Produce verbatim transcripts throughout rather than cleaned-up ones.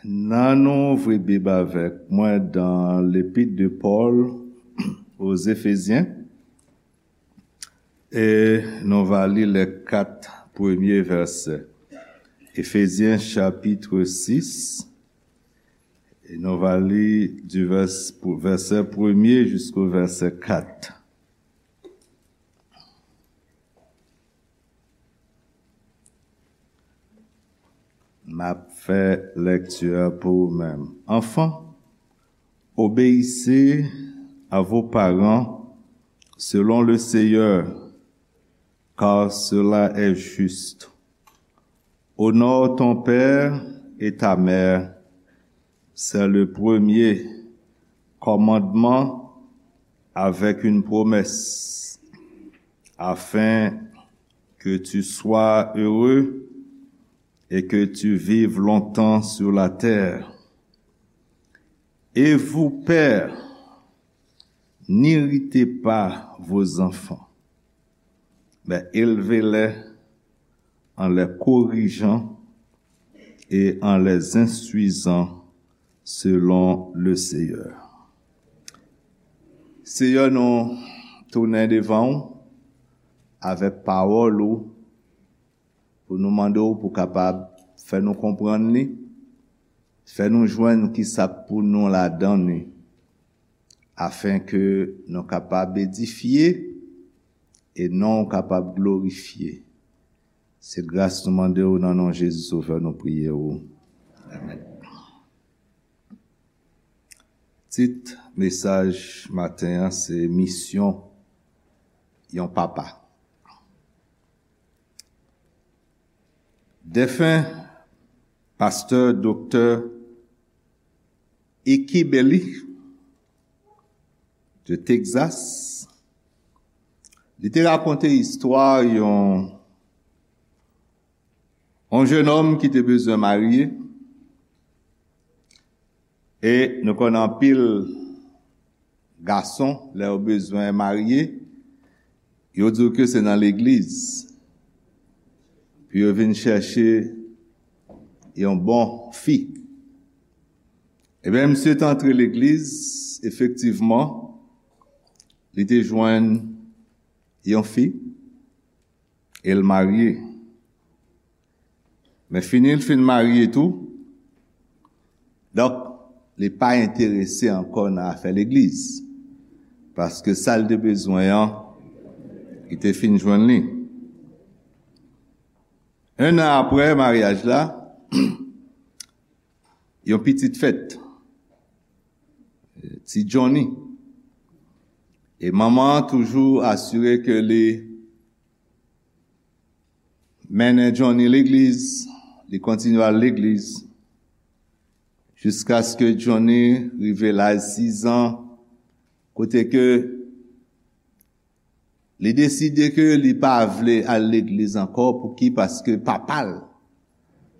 Nan nou ouvri Bib avèk mwen dans l'épître de Paul aux Éphésiens, e nou va li les quatre premiers versets. Éphésiens chapitre six, e nou va li du vers, vèsè premye jusqu'au verset quatre. M ap fè lèkti a pou ou menm. Enfants, obéissez à vos parents selon le Seigneur, car cela est juste. Honore ton père et ta mère, c'est le premier commandement avec une promesse, afin que tu sois heureux et que tu vives longtemps sur la terre. Et vous, pères, n'irritez pas vos enfants, mais élevez-les en les corrigeant et en les instruisant selon le Seigneur. Seyè, nou tounen devan w avèk pawòl ou pou nou mande w pou kapab fè nou konprann li, fè nou jwenn ki sa k pou nou ladan li, afenke nou kapab edifye e non w kapab glorifye. Se gras nou mande w nan non Jezi Sovè nou priye w. Amèn. Tit mesaj maten an se Misyon yon papa. Defen pastè doktè Iki Belly de Texas, li te rakonte istwa yon, yon jennonm ki te bezwen marye. E nou konnen anpil gason, lè yo bezwen marye, yo di w ke se nan legliz pou yo vin chèche yon bon fi. Ebyen, misye te antre legliz, efektivman, li te jwenn yon fi, e l marye. Men fini l fin marye tou, donk, li pa enterese ankò nan afè legliz, paske sa l te bezwen an, li te fin jwenn li. En an apre maryaj la, yon pitit fèt, ti Johnny. E manman an toujou asire ke li mennen Johnny legliz, li kontinye al legliz, jiskaske Johnny rive laj sizan, kote ke li deside ke li pa vle al legliz ankò. Pouki? Paske papa l,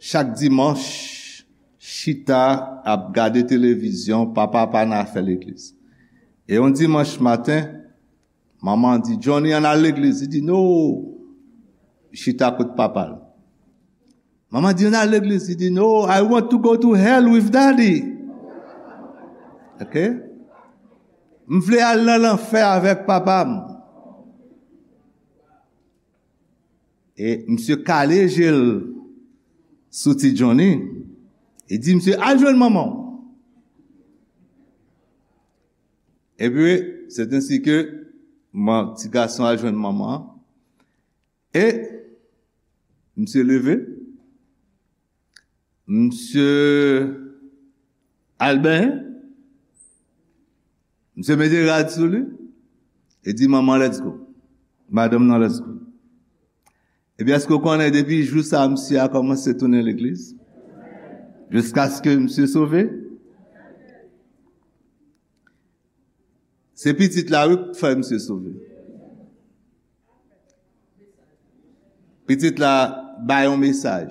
chak dimanch, chita ap gade televizyon, papa pa nan afè legliz. E yon dimanch maten, manman di, "Johnny, ann al legliz." Li di, "No." Chita kot papa l. Manman di, "Ann al legliz." Li di, "No, I want to go to hell with daddy." Ok? "M vle al nan lanfè avèk papa m." E misye kale je l sou ti Johnny. E di, "Misye, al jwenn manman w." Epi, se ensi ke man, ti gason al jwenn manman an. E misye leve. Misye al benyen. Misye mete rad sou li. E di, "Manman, let's go. Madanm nan, let's go." Epi èske w konnen depi jou sa a, misye a kòmanse tounen legliz? Jiskaske misye sove? Se pitit la, wi, k fè misye sove. Pitit la bay yon mesaj.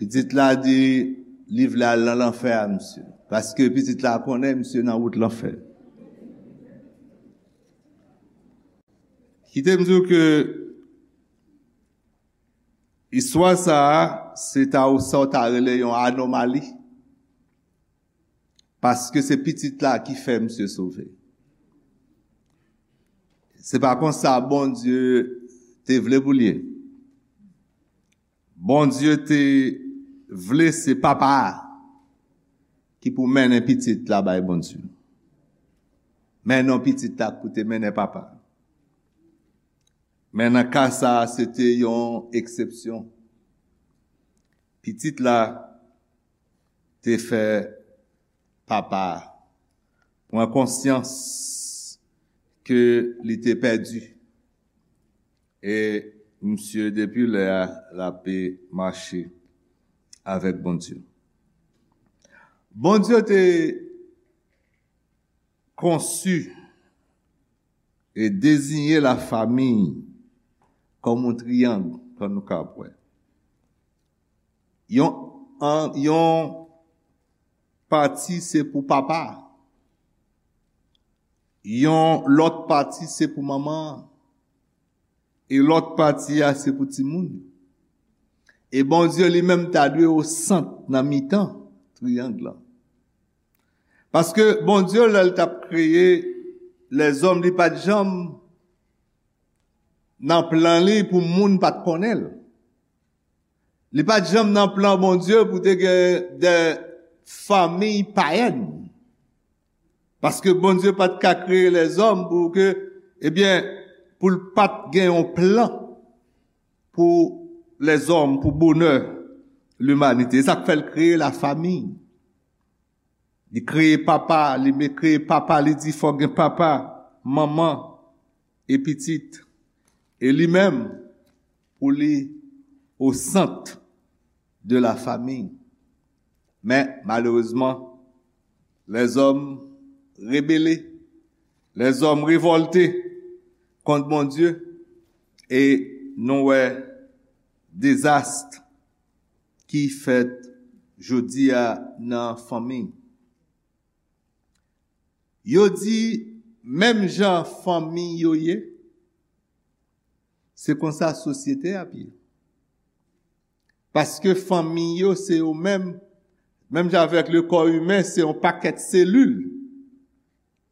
Pitit la di li vle al nan lanfè a misye. Paske pitit la konnen misye nan wout lanfè. Kite m di w ke Istwa sa a, se ta ou sa w ta rele yon anomali. Paske se pitit la ki fè misye sove. Se pa konsa Bondye te vle pou l ye. Bondye te vle se papa a ki pou mennen pitit la bay Bondye. Men non pitit la pou te mennen papa. Men nan ka sa a, se te yon eksepsyon. Pitit la te fè papa a pran konsyans ke li te pèdi. E misye, depi lè a, l ape mache avèk Bondye. Bondye te konsi e deziyen lafanmi kòm yon triyang, kòm nou ka wè. Yon, an, yon pati se pou papa. Yon lòt pati se pou manman. E lòt pati a se pou timoun. E Bondye li menm ta dwe o sant nan mitan triyang lan. Paske Bondye, lè l t ap kreye lèzòm, li pa t janm nan plan li pou moun pa t konnen l. Li pa t janm nan plan Bondye pou te gen de fanmi payèn. Paske Bondye pa t ka kreye lèzòm pou ke, ebyen, pou l pa t gen yon plan pou lèzòm, pou bonè limanite. E sa k fè l kreye lafanmi. Li kreye papa, li me kreye papa, li di fòk gen papa, manman, e pitit. E li menm, pou li o sant de lafanmi. Men, malerezman, lèzòm rebele, lèzòm revòlte kont Bondye, e nou wè dezas ki fèt jodi a nan fanmi. Yo di, menm jan fanmi yo ye, se konsa sosyete ap ye. Paske fanmi yo, se yo menm, menm jan avèk le kò imen, se yon pakèt selil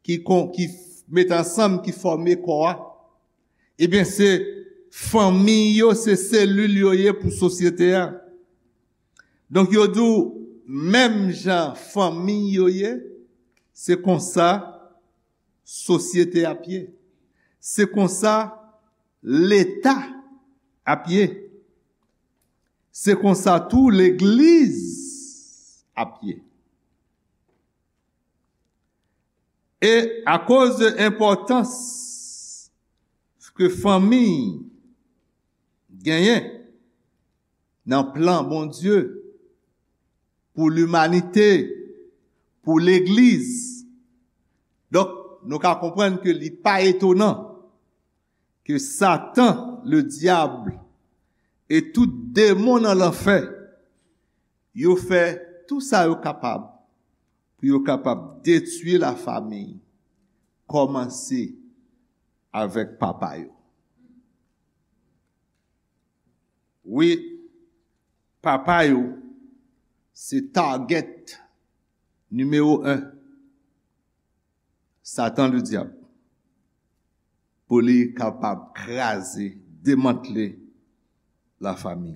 ki kon, ki f-, met ansanm, ki fòme kò a. Ebyen, se fanmi yo, se selil yo ye pou sosyete a. Donk, yo di w, menm jan fanmi yo ye, se konsa sosyete ap ye. Se konsa Leta ap ye. Se konsa tou legliz ap ye. E akoz de enpòtans ke fanmi genyen nan plan Bondye pou limanite, pou legliz, donk, nou ka konprann ke li pa etonan ke Satan, le dyab, e tout demon nan lanfè, yo fè tou sa yo kapab pou yo kapab detwi lafanmi, kòmanse avèk papa yo. Wi, papa yo se target nimewo en. Satan, le dyab, pou li kapab kraze, demantle lafanmi.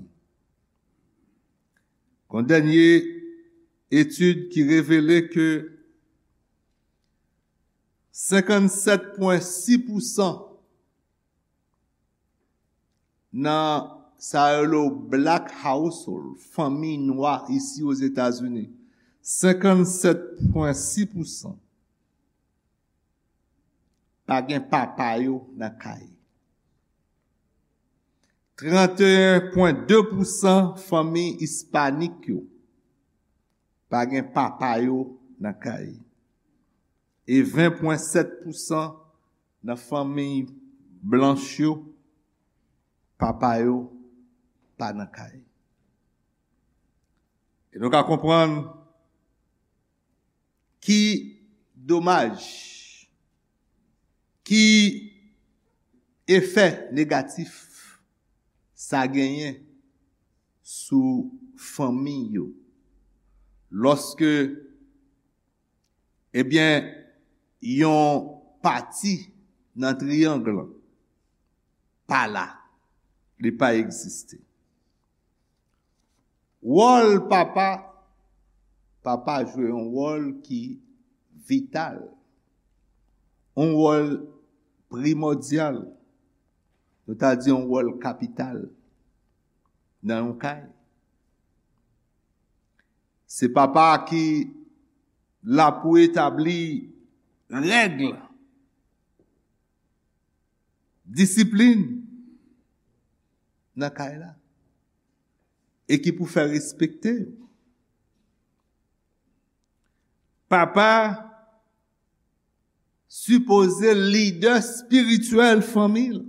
Gon dènye etid ki revele ke senkannsèt pwen sis pousan nan sa yo rele black household, fanmi nwa isi Ozetazini, senkannsèt pwen sis pousan pa gen papa yo nan kay. Trannteyen pwen de pousan fanmi ispanik yo pa gen papa yo nan kay. E ven pwen sèt pousan nan fanmi blanch yo, papa yo pa nan kay. E nou ka konprann ki domaj, ki efè negatif sa genyen sou fanmi yo. Lòske, ebyen, yon pati nan triyang lan pa la, li pa egziste. Wòl papa, papa jwe yon wòl ki vital, yon wòl primòdyal, nou ta di yon wòl kapital nan yon kay. Se papa ki la pou etabli règ, disiplin nan kay la e ki pou fè respekte. Papa sipoze lidè espirityèl fanmi l.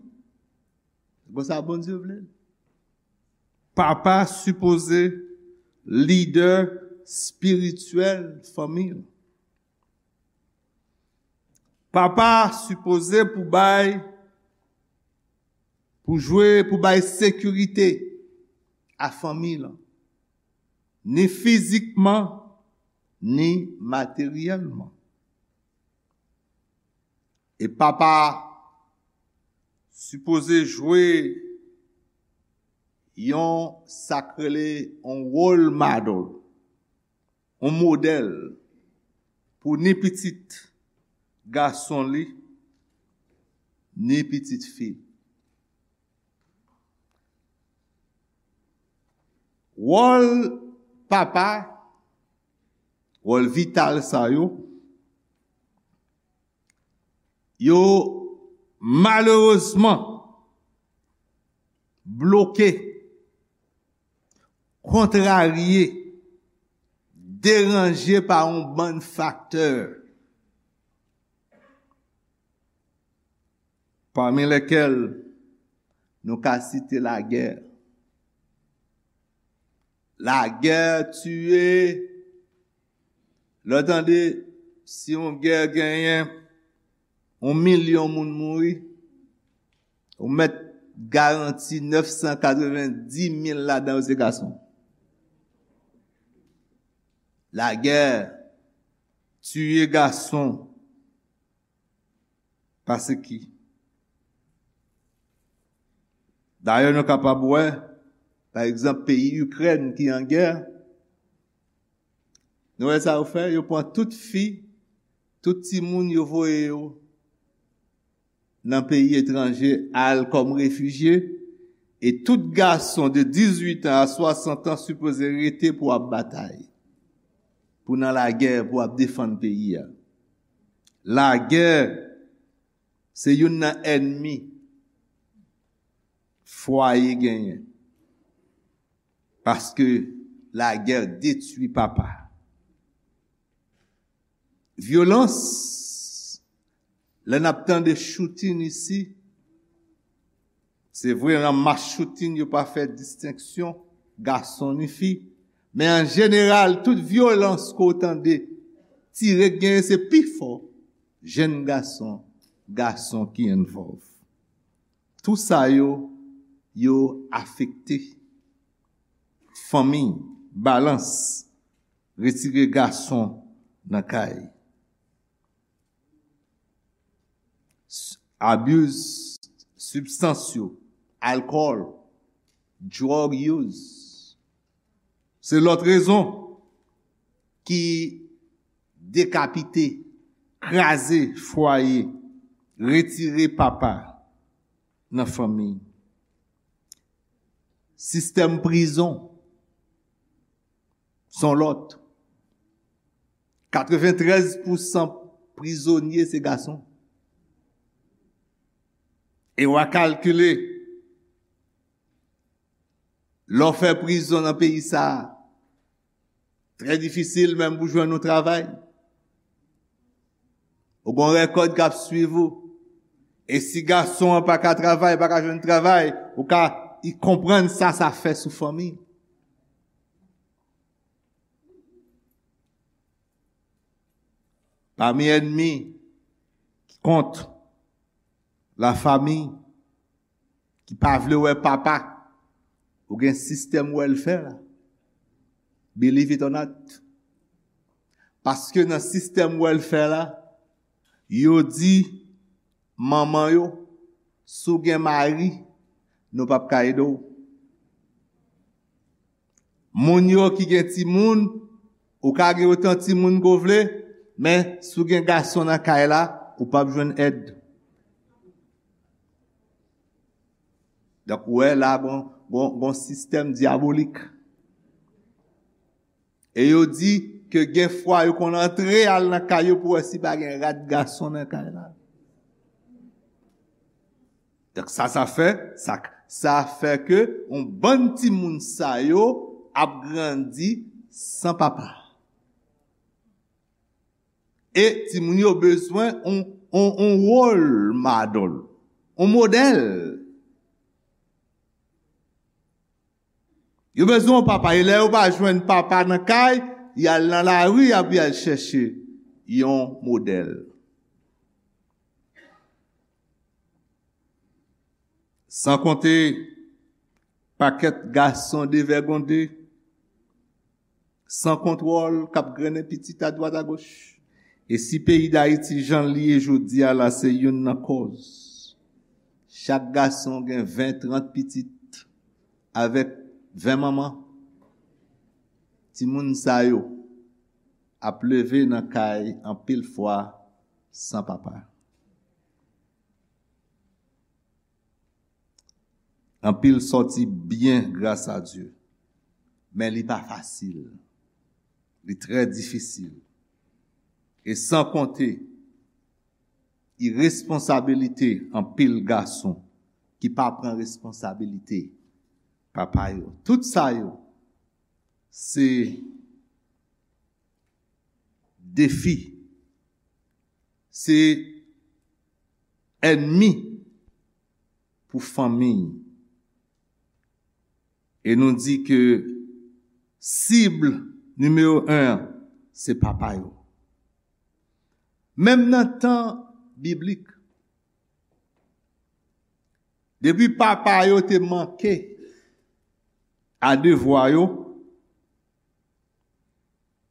Konsa Bondye vle l. Papa sipoze lidè espirityèl fanmi l. Papa sipoze pou bay, pou jwe, pou bay sekirite a fanmi l, ni fizikman, ni materyèlman. E papa sipoze jwe yon, sa k rele yon role model, yon modèl pou ni pitit gason li, ni pitit fi l. Wòl papa, wòl vital sa yo, yo malerezman bloke, kontrarye, deranje pa yon bann faktè, pami lèkèl nou ka site lagè. Lagè tiye, lè w tande si yon gè genyen yon milyon moun mouri, ou mèt garanti nèf san katrevenndis mil ladan yo se gason. Lagè tiye gason. Pase ki? Dayè, nou kapab wè, pa egzanp, peyi Ikrèn ki an gè, nou wè sa yo fè? Yo pran tout fi, tout timoun, yo voye yo nan peyi etranje, al kòm refijye, e tout gason de dizuit an a swasant an sipoze rete pou ap batay, pou nan lagè, pou ap defann peyi a. Lagè se youn nan ènmi fwaye genyen. Paske lagè detwi papa. Vyolans, lè n ap tande shooting isi, se vre, nan mas shooting, yo pa fè distenksyon gason ni fi. Men an jeneral, tout vyolans ke w tande tire k genyen, se pi fò jenn gason, gason ki envòlv. Tou sa yo, yo afekte fanmi, balans, retire gason nan kay. S-, abuse sibstans yo, alkòl, drug use. Se lòt rezon ki dekapite, kraze fwaye, retire papa nan fanmi. Sistèm prizon, s on lòt. Katreventrèz pousan prizonye se gason. E w a kalkile, lè w fè prizon nan peyi sa a, trè difisil menm pou jwenn yon travay. Ou gen yon rèkòd k ap swiv ou. E si gason an pa ka travay, pa ka jwenn travay, ou ka konprann sa sa fè sou fanmi. Pami ènmi ki kont lafanmi, ki pa vle wè papa, Ou gen sistèm welfare la. Believe it or not. Paske nan sistèm welfare la, yo di manman yo, si w gen mari, nou p ap ka ede w. Moun yo ki gen timoun, ou ka gen otan timoun ke w vle, men si w gen gason nan kay la, ou p ap jwenn èd. Donk, ou wè la, gon, gon, gon sistèm dyabolik. E yo di ke gen fwa yo konn antre al nan kay yo pou wè si pa gen rat gason nan kay la. Donk sa, sa fè, sa, sa fè ke yon bann timoun sa yo ap grandi san papa. E timoun yo bezwen yon, yon, yon role model, yon modèl. Yo bezwen yon papa. E lè yo pa jwenn papa nan kay, y al nan lari, y ap y al chèche yon modèl. San konte pakèt gason devègonde, san kontwòl, k ap grennen pitit adwat agoch. E si peyi Dayiti jan l ye jodi a la, se youn nan kòz. Chak gason gen ven, trant pitit, avèk ven manman. Timoun sa yo ap leve nan kay anpil fwa san papa. Anpil sòti byen, gras a Dye. Men li pa fasil. Li trè difisil. E san konte iresponsabilite anpil gason ki pa pran responsabilite papa yo. Tout sa yo, se defi, se ènmi pou fanmi. E nou di ke sib nimewo en an, se papa yo. Menm nan tan biblik, depi papa yo te manke a devwa yo,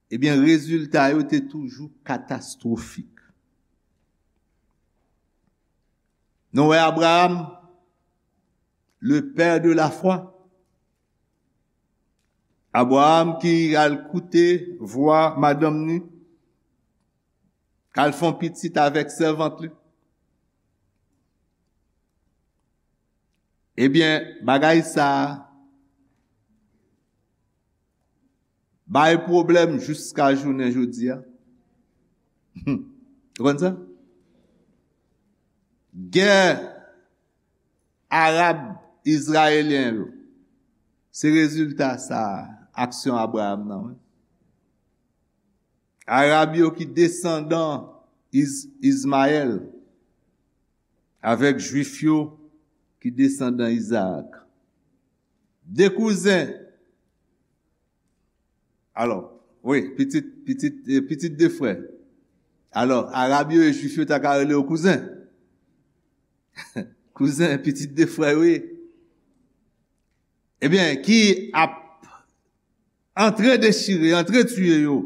ebyen, rezilta yo te toujou katastwofik. Nou wè Abraham, le père de la foi. Abraham ki al koute vwa madanm ni, k al fè yon pitit avèk sèvant li. Ebyen, bagay sa a bay pwoblèm jiska jounen jodi a. Ou konn sa? Gè arab izrayelyen yo, se rezilta sa a, aksyon Abraham nan, wi. Arab yo ki desandan Iz-, Izmayèl, avèk Jwif yo ki desandan Izaak. De kouzen. Alò, wi, pitit, pitit, eh, pitit de frè. Alò, Arab yo e Jwif yo ta ka rele yo kouzen. Kouzen, pitit de frè yo ye. Ebyen, ki ap antre dechire, antre tiye yo.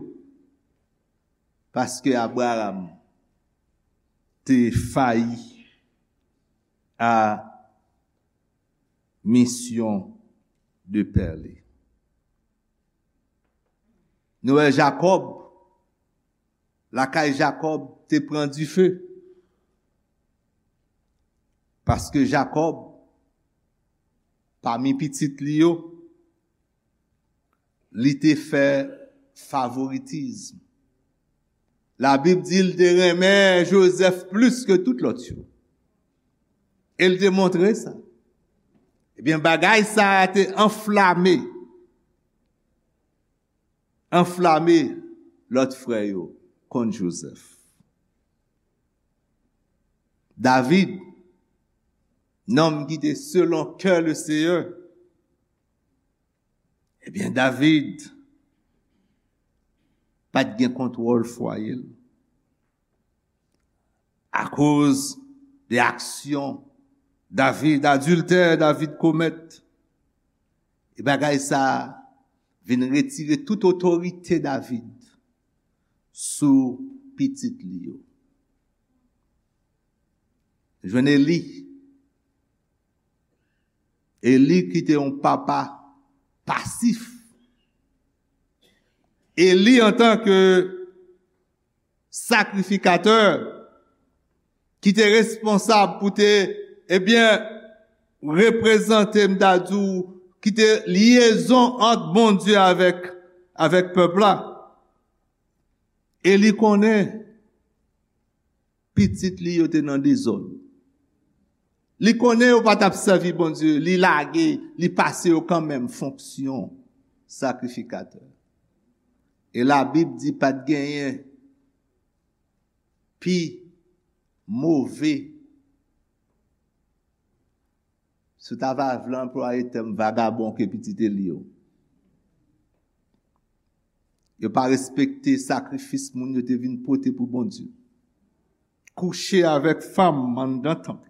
Paske Abraham te fayi a misyon de pè li. Nou wè Jakòb, lakay Jakòb te pran dife. Paske Jakòb, pami pitit li yo, li te fè favoritis. Labib di l te renmen Jozèf plis ke tout lòt yo. E l te montre sa. Ebyen, bagay sa a te anflame, anflame lòt frè yo kont Jozèf. David, nonm ki te selon kè le Seyè, ebyen, David pa t gen kontwòl fwaye l. Akoz de aksyon David, adiltè David komèt, E bagay sa a vin retire tout otorite David sou pitit li yo. Jwenn Eli. Eli ki te yon papa pasif. Eli antanke sakrifikatè ki te responsab pou te, ebyen, reprezante, m ta di w, ki te lyezon ant Bondye avèk, avèk pèp la. Eli konnen pitit li yo te nan dezòd. Li konnen yo pa t ap sèvi Bondye, li lage, li pase yo kanmenm fonksyon sakrifikatè. E Labib di pa t genyen pi move, si w ta va vle anplwaye tèm, vagabon ke pitit Eli yo. Yo pa respekte sakrifis moun yo te vin pote pou Bondye. Kouche avèk fanm anndan tanp.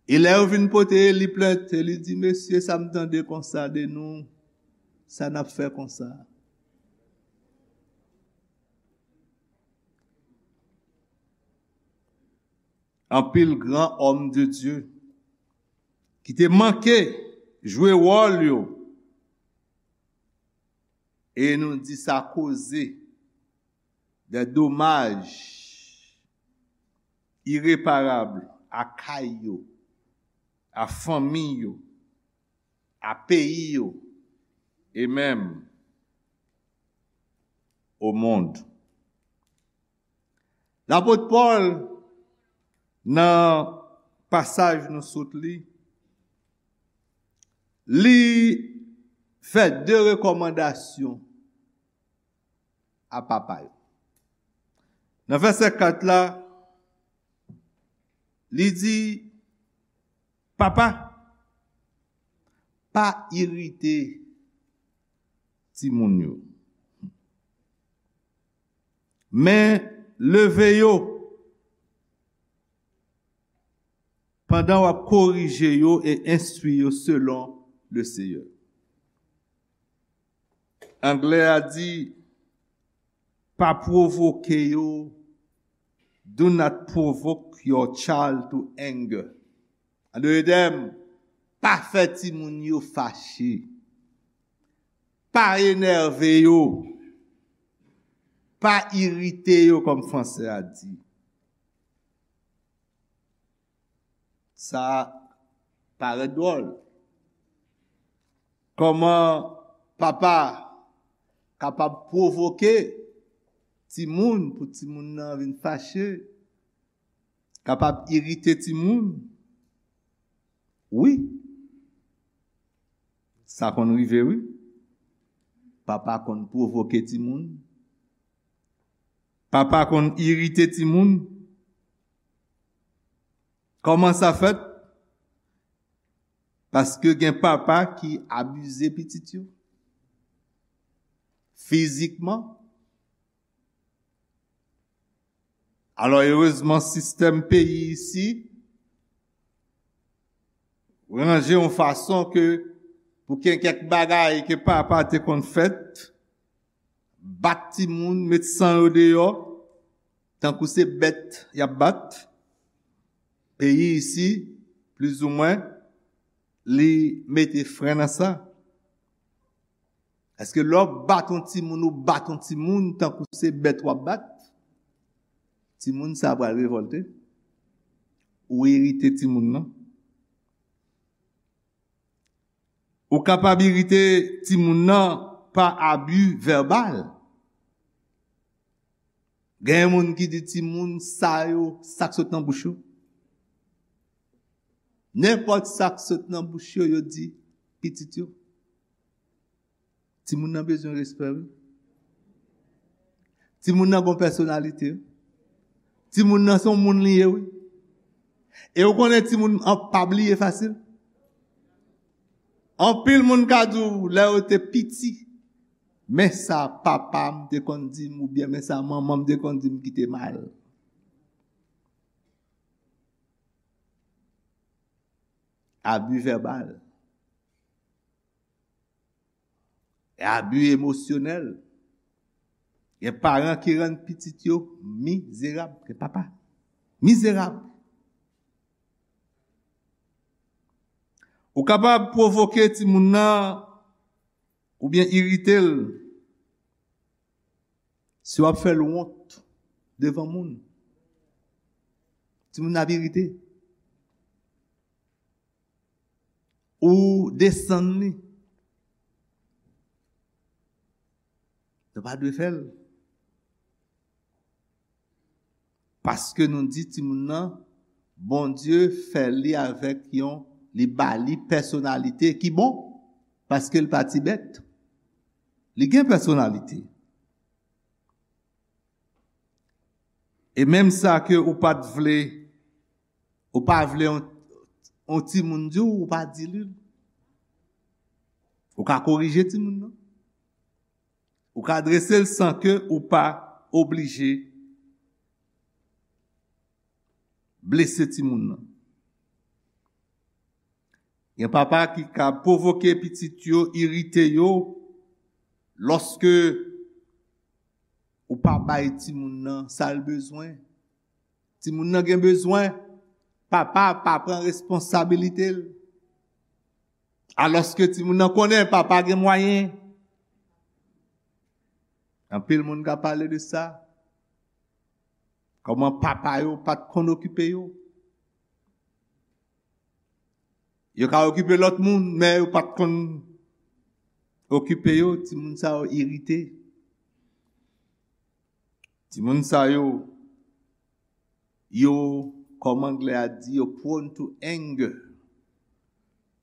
E lè yo vin pote Eli plent, Eli di, "Mesye, sa m tande konsa de nou, sa n ap fè konsa?" Anpil gran òm de Dye ki te manke jwe wòl yo, e nou di sa koze de domaj ireparab a kay yo, a fanmi yo, a peyi yo, e menm o mond. Lapot Pòl, nan pasaj nou sot li, li fè de rekòmandasyon a papa yo. Nan vèsè kat la, li di, "Papa, pa irite timoun yo, men leve yo pandan w ap korije yo e enstwi yo selon le Seyè." Anglè a di, "Pa pwovoke yo, do not provoke your child to anger." An dòt tèm, pa fè timoun yo fache. Pa enève yo. Pa irite yo, kòm fransè a di. Sa parèt dwòl. Kòman papa kapab pwovoke timoun pou timoun nan vin fache, kapab irite timoun? Wi. Sa konn rive, wi. Papa konn pwovoke timoun. Papa konn irite timoun. Kòman sa fèt? Paske gen papa ki abize pitit yo fizikman. Alò, erezman, sistèm peyi isi ranje yon fason ke pou gen kèk bagay ke papa te konn fèt, bat timoun, met san yo deyò, tankou se bèt y ap bat. Peyi isi, plizoumwen, li mete fren nan sa. Èske lè w bat yon timoun, ou bat yon timoun tankou se bèt w ap bat, timoun sa a pral revòlte? Ou irite timoun nan? Ou kapab irite timoun nan pa abi vèbal. Gen moun ki di timoun sa yo, sa k sot nan bouch yo. Nenpòt sa k sot nan bouch yo, yo di pitit yo. Timoun nan bezwen respè, wi. Timoun nan gon pèsonalite, wi. Timoun nan se yon moun li ye, wi. E ou konnen timoun an pa bliye fasil. Anpil moun ka di w lè yo te piti, men sa papa m te konn di m, oubyen men sa manman m te konn di m ki te mal. Abi vèbal. E abi emosyonèl. Gen paran ki rann pitit yo mizerab. Gen papa mizerab. Ou kapab pwovoke timoun nan oubyen irite l si w ap fè l wont devan moun. Timoun nan ap irite. Ou desann li. Nou pa dwe fè l. Paske nou di timoun nan, Bondye fè li avèk yon, li ba li pèsonalite ki bon, paske l pa ti bèt. Li gen pèsonalite. E menm sa ke ou pa t vle, ou pa vle yon, yon timoun di w, ou pa di li l. Ou ka korije timoun nan. Ou ka drese l san ke ou pa oblije blese timoun nan. Gen papa ki ka pwovoke pitit yo, irite yo, lòske ou pa bay timoun nan sa l bezwen. Timoun nan gen bezwen, papa pa pran responsabilite l. Alòske timoun nan konnen papa gen mwayen. Anpil moun ka pale de sa. Kòman papa yo pa t konn okipe yo. Yo ka okipe lòt moun, men yo pa t konn okipe yo. Timoun sa yo irite. Timoun sa yo, yo, kòman anglè a di, yo prone to anger.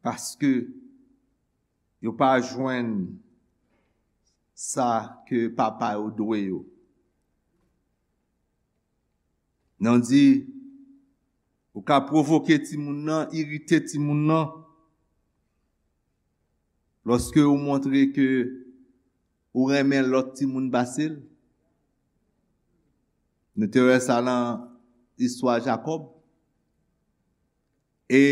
Paske yo pa jwenn sa ke papa yo dwe yo. Nou di, ou ka pwovoke timoun nan, irite timoun nan, lòske ou montre ke ou renmen lòt timoun pase l. Nou te wè sa nan istwa Jakòb. E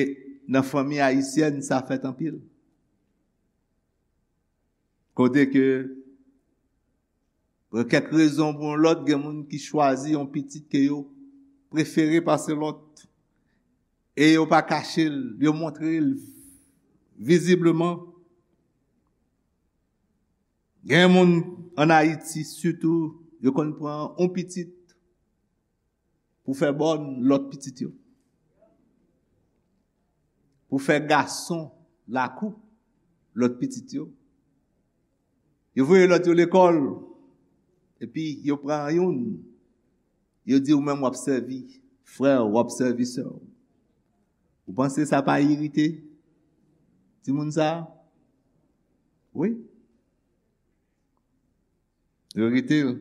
nan fanmi ayisyèn, sa fèt anpil. Kote ke, pou kèk rezon pou yon lòt, gen moun ki chwazi yon pitit ke yo prefere pase lòt. E yo pa kache l, yo montre l vizibleman. Gen moun ann Ayiti, sitou, yo konn pran yon pitit pou fè bòn lòt pitit yo. Pou fè gason lakou lòt pitit yo. Yo voye lòt yo lekòl, epi yo pran youn. Yo di ou menm w ap sèvi frè w, w ap sèvi sè w. Ou panse sa pa irite timoun sa a? Wi. Yo irite l.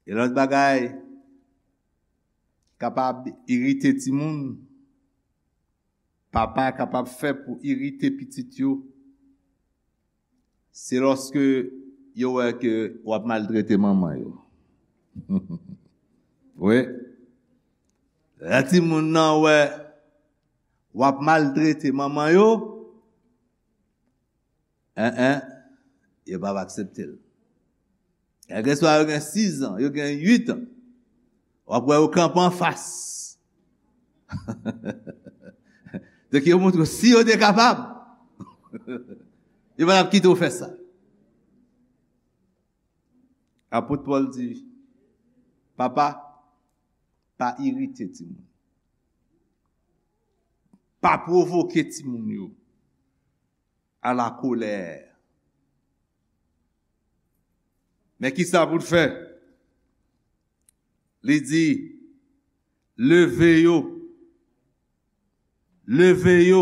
E lòt bagay kapab irite timoun, papa kapab fè pou irite pitit yo, se lòske yo wè ke w ap maltrete manman yo. Wi. Lè timoun nan wè w ap maltrete manman yo, en, en, yo p ap aksepte l. Kèlkeswa yo gen sis an, yo gen uit an, w ap wè yo kanpe anfas. Donk, yo montre w, si yo te kapab, yo pa t ap kite w fè sa. Apot Pòl di, papa, pa irite timoun. Pa pwovoke timoun yo à la colère. Men ki sa pou l fè? Li di, leve yo. Leve yo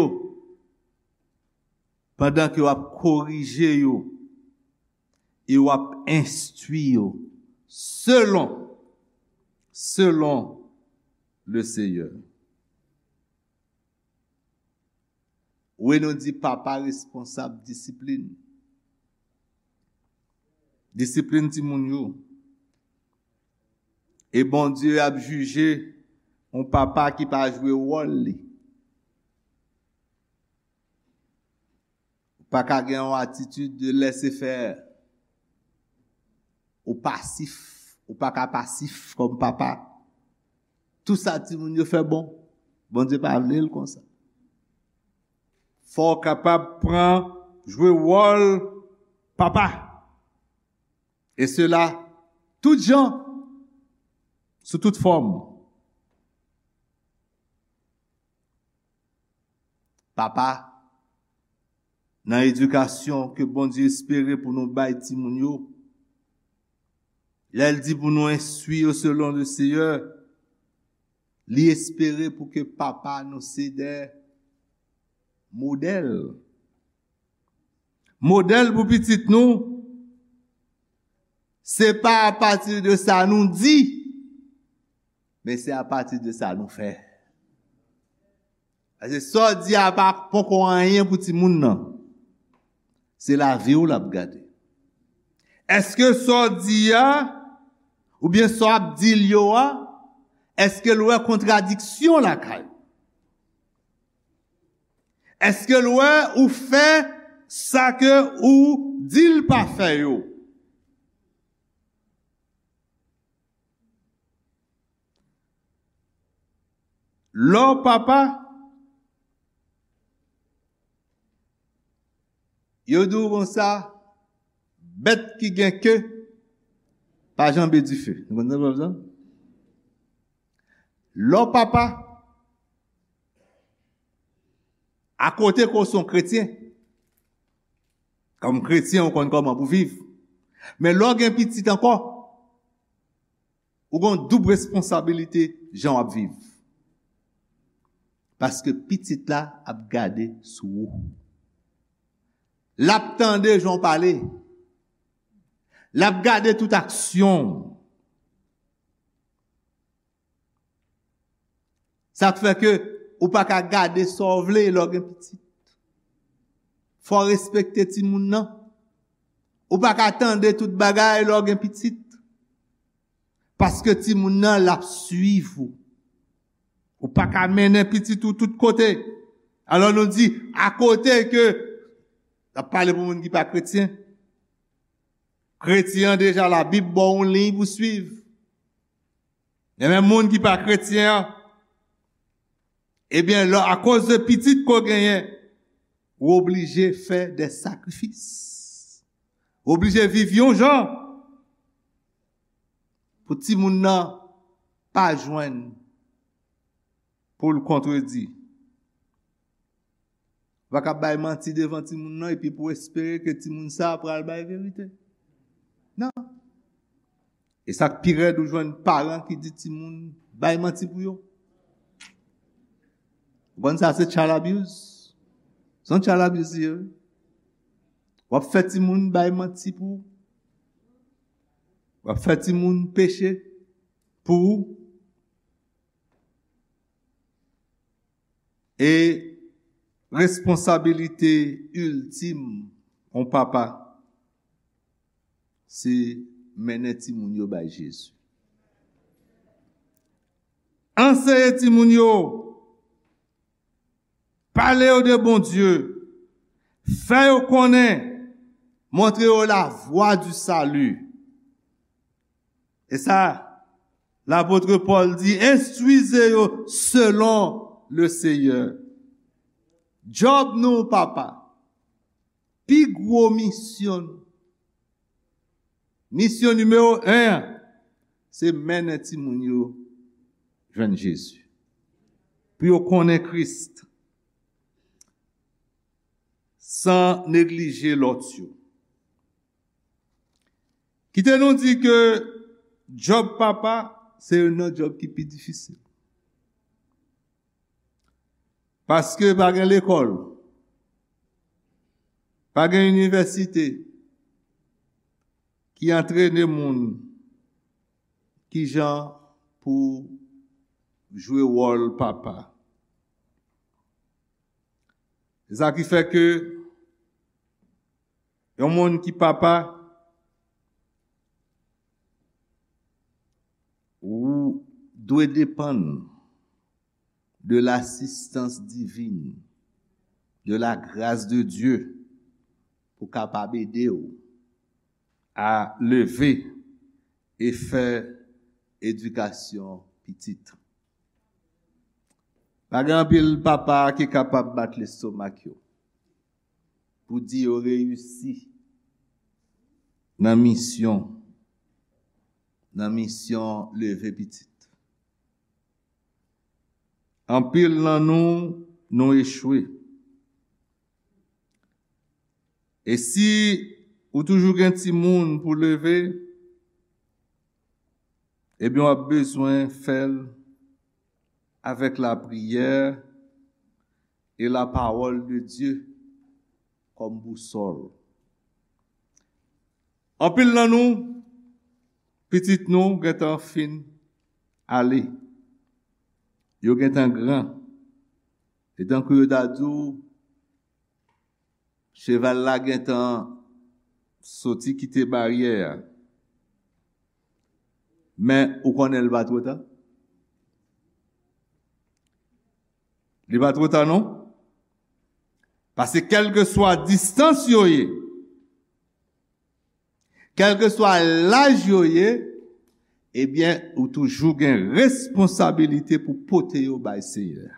pandan ke w ap korije yo e w ap enstwi yo selon, selon le Seyè. Wi, nou di papa responsab disiplin. Disiplin timoun yo. E Bondye ap jije yon papa ki pa jwe wòl li. pa ka gen yon atitid de laissez-faire. Ou pasif, ou pa ka pasif kòm papa. Tout sa timoun yo fè bon, Bondye pa vle l konsa. Fò w kapab pran, jwe wòl papa. E sela, tout jan, sou tout fòm. Papa, nan edikasyon ke Bondye espere pou nou bay timoun yo, lè l di pou nou enstwi yo selon le Seyè, li espere pou ke papa nou se de modèl. Modèl pou pitit nou, se pa apati de sa nou di, men se apati de sa nou fè. Paske sa w di a pa poko anyen pou timoun nan. Se lavi w l ap gade. Èske sa w di a, oubyen sa w ap di l yo a, èske l wè kontradiksyon lakay ou? Èske l wè ou fè sa ke ou di l pa fè yo? Lè w papa, yo di w konsa, bèt ki gen ke pa janbe dife. Nou konn sa pwovèb sa? Lè w papa, akote ke w se yon kretyen, kòm kretyen, ou konn kòman pou viv. Men lè w gen pitit ankò, ou gen yon doub responsabilite jan w ap viv. Paske pitit la ap gade sou ou. L ap tande jan w pale. L ap gade tout aksyon w. Sa k fè ke ou pa ka gade sa w vle lè w gen pitit. Fò w respekte timoun nan. Ou pa ka tande tout bagay lè w gen pitit. Paske timoun nan, l ap swiv ou. Ou pa ka mennen pitit ou tout kote. Alò nou di, akote ke, n ap pale pou moun ki pa kretyen. Kretyen an deja, Labib ba w yon liy pou swiv. Men moun ki pa kretyen an, ebyen, lè, akoz de pitit ke w genyen, ou oblije fè de sakrifis. Ou oblije viv yon jan pou timoun nan pa jwenn pou l kontredi. Ou pa ka bay manti devan timoun nan epi pou w espere ke timoun sa a pral bay verite. Non. E sa k pi rèd, ou jwenn paran ki di timoun bay manti pou yo. Ou konn sa se child abuse? Se yon child abuse li ye, wi. W ap fè timoun bay manti pou ou. W ap fè timoun peche pou ou. E responsabilite iltim yon papa, se mennen timoun yo bay Jezi. Anseye timoun yo, pale yo de Bondye, fè yo konnen, montre yo la voie du salut. E sa, lapot Pòl di, enstwize yo selon le Seyè. Djòb nou, papa, pi gwo misyon nou, misyon nimewo en an, se mennen timoun yo jwenn Jezi. Pou yo konnen Kris, san neglije lòt yo. Kite nou di ke djòb papa, se youn nan djòb ki pi difisil. Paske pa gen lekòl, pa gen inivèsite ki antrene moun kijan pou jwe wòl papa. Se sa ki fè ke yon moun ki papa, ou dwe depann de lasistans divin, de la grâce de Dieu, pou kapab ede w a leve e fè edikasyon pitit. Pa gen anpil papa ki kapab bat lestomak yo pou di yo reyisi nan misyon, nan misyon leve pitit. Anpil nan nou, nou echwe. E si ou toujou gen timoun pou leve, ebyen, w ap bezwen fè l avèk lapriyè e lapawòl de Dye kòm bousòl. Anpil nan nou, pitit nou gentan fin ale. Yo gentan gran. E tankou yo ta di w, cheval la gentan soti kite baryè a. Men ou konnen l pa twò ta? Li pa twò ta non. Paske kèlkeswa distans yo ye, kèlkeswa laj yo ye, ebyen, ou toujou gen responsabilite pou pote yo bay Senyè a.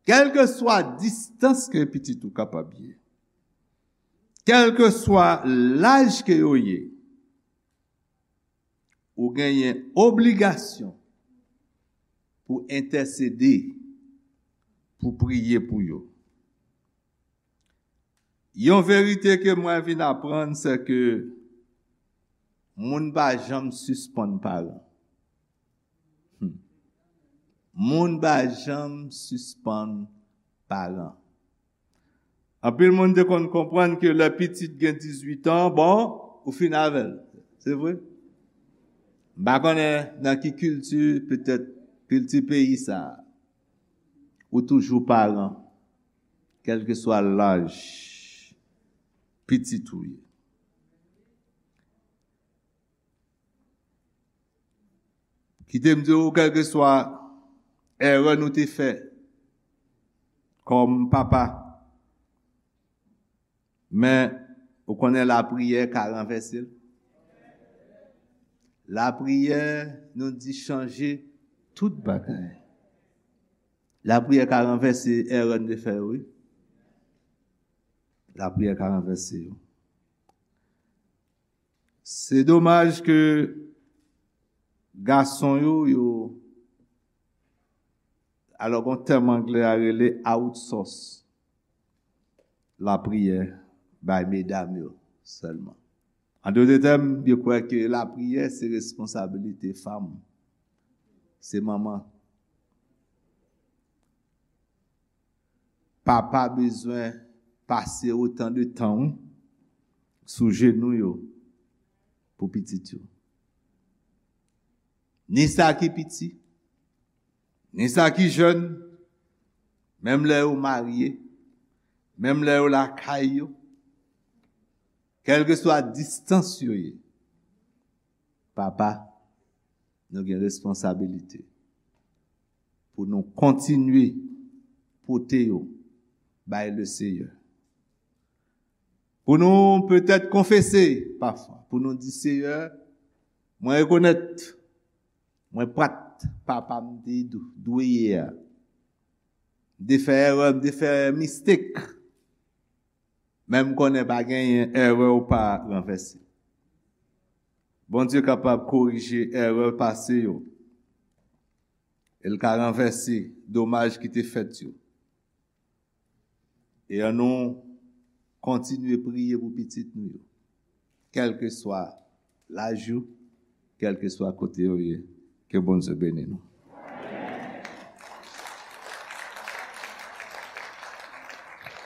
Kèlkeswa distans ke pitit ou kapab ye, kèlkeswa laj ke yo ye, ou genyen obligasyon pou entèsede, pou priye pou yo. Yon verite ke mwen vin aprann, se ke moun pa janm sispann paran. Hmm. Moun pa janm sispann paran. Anpil moun te konn konprann ke lè pitit gen dizuit an, bon, ou fin avè l. Se vre? M pa konnen nan ki kilti, petèt kilti peyi sa a. Ou toujou paran, kèlkeswa laj pitit ou ye. Kite m di w, kèlkeswa erè nou te fè kòm papa, men ou konnen lapriyè ka ranvèse l. Lapriyè, nou di, chanje tout bagay. Lapriyè ka ranvèse erè n te fè yo, wi. Lapriyè ka ranvèse yo. Se domaj ke gason yo, yo, alò, gon tèm anglè a rele outsource lapriyè bay medam yo sèlman. An dòt tèm, yo kwè ke lapriyè se responsabilite fanm, se manman. Papa bezwen pase otan de tan, wi, sou jenou yo pou pitit yo. Ni sa ki piti, ni sa ki jèn, menm lè yo marye, menm lè yo lakay yo, kèlkeswa distans yo ye, papa, nou gen responsabilite pou nou kontinye pote yo bay Leseyè. Pou nou petèt konfese pafwa, pou nou di, Seyè, mwen rekonèt mwen pa t papa m te dwe ye a. M te fè erè, m te fè mistek. Men m konnen pa genyen erè w pa ranvèse. Bondye kapab korije erè pase yo. E l ka ranvèse domaj ki te fèt yo. E ann nou kontinye priye pou pitit nou yo. Kèlkeswa laj yo, kèlkeswa kote yo ye, ke Bondye beni nou.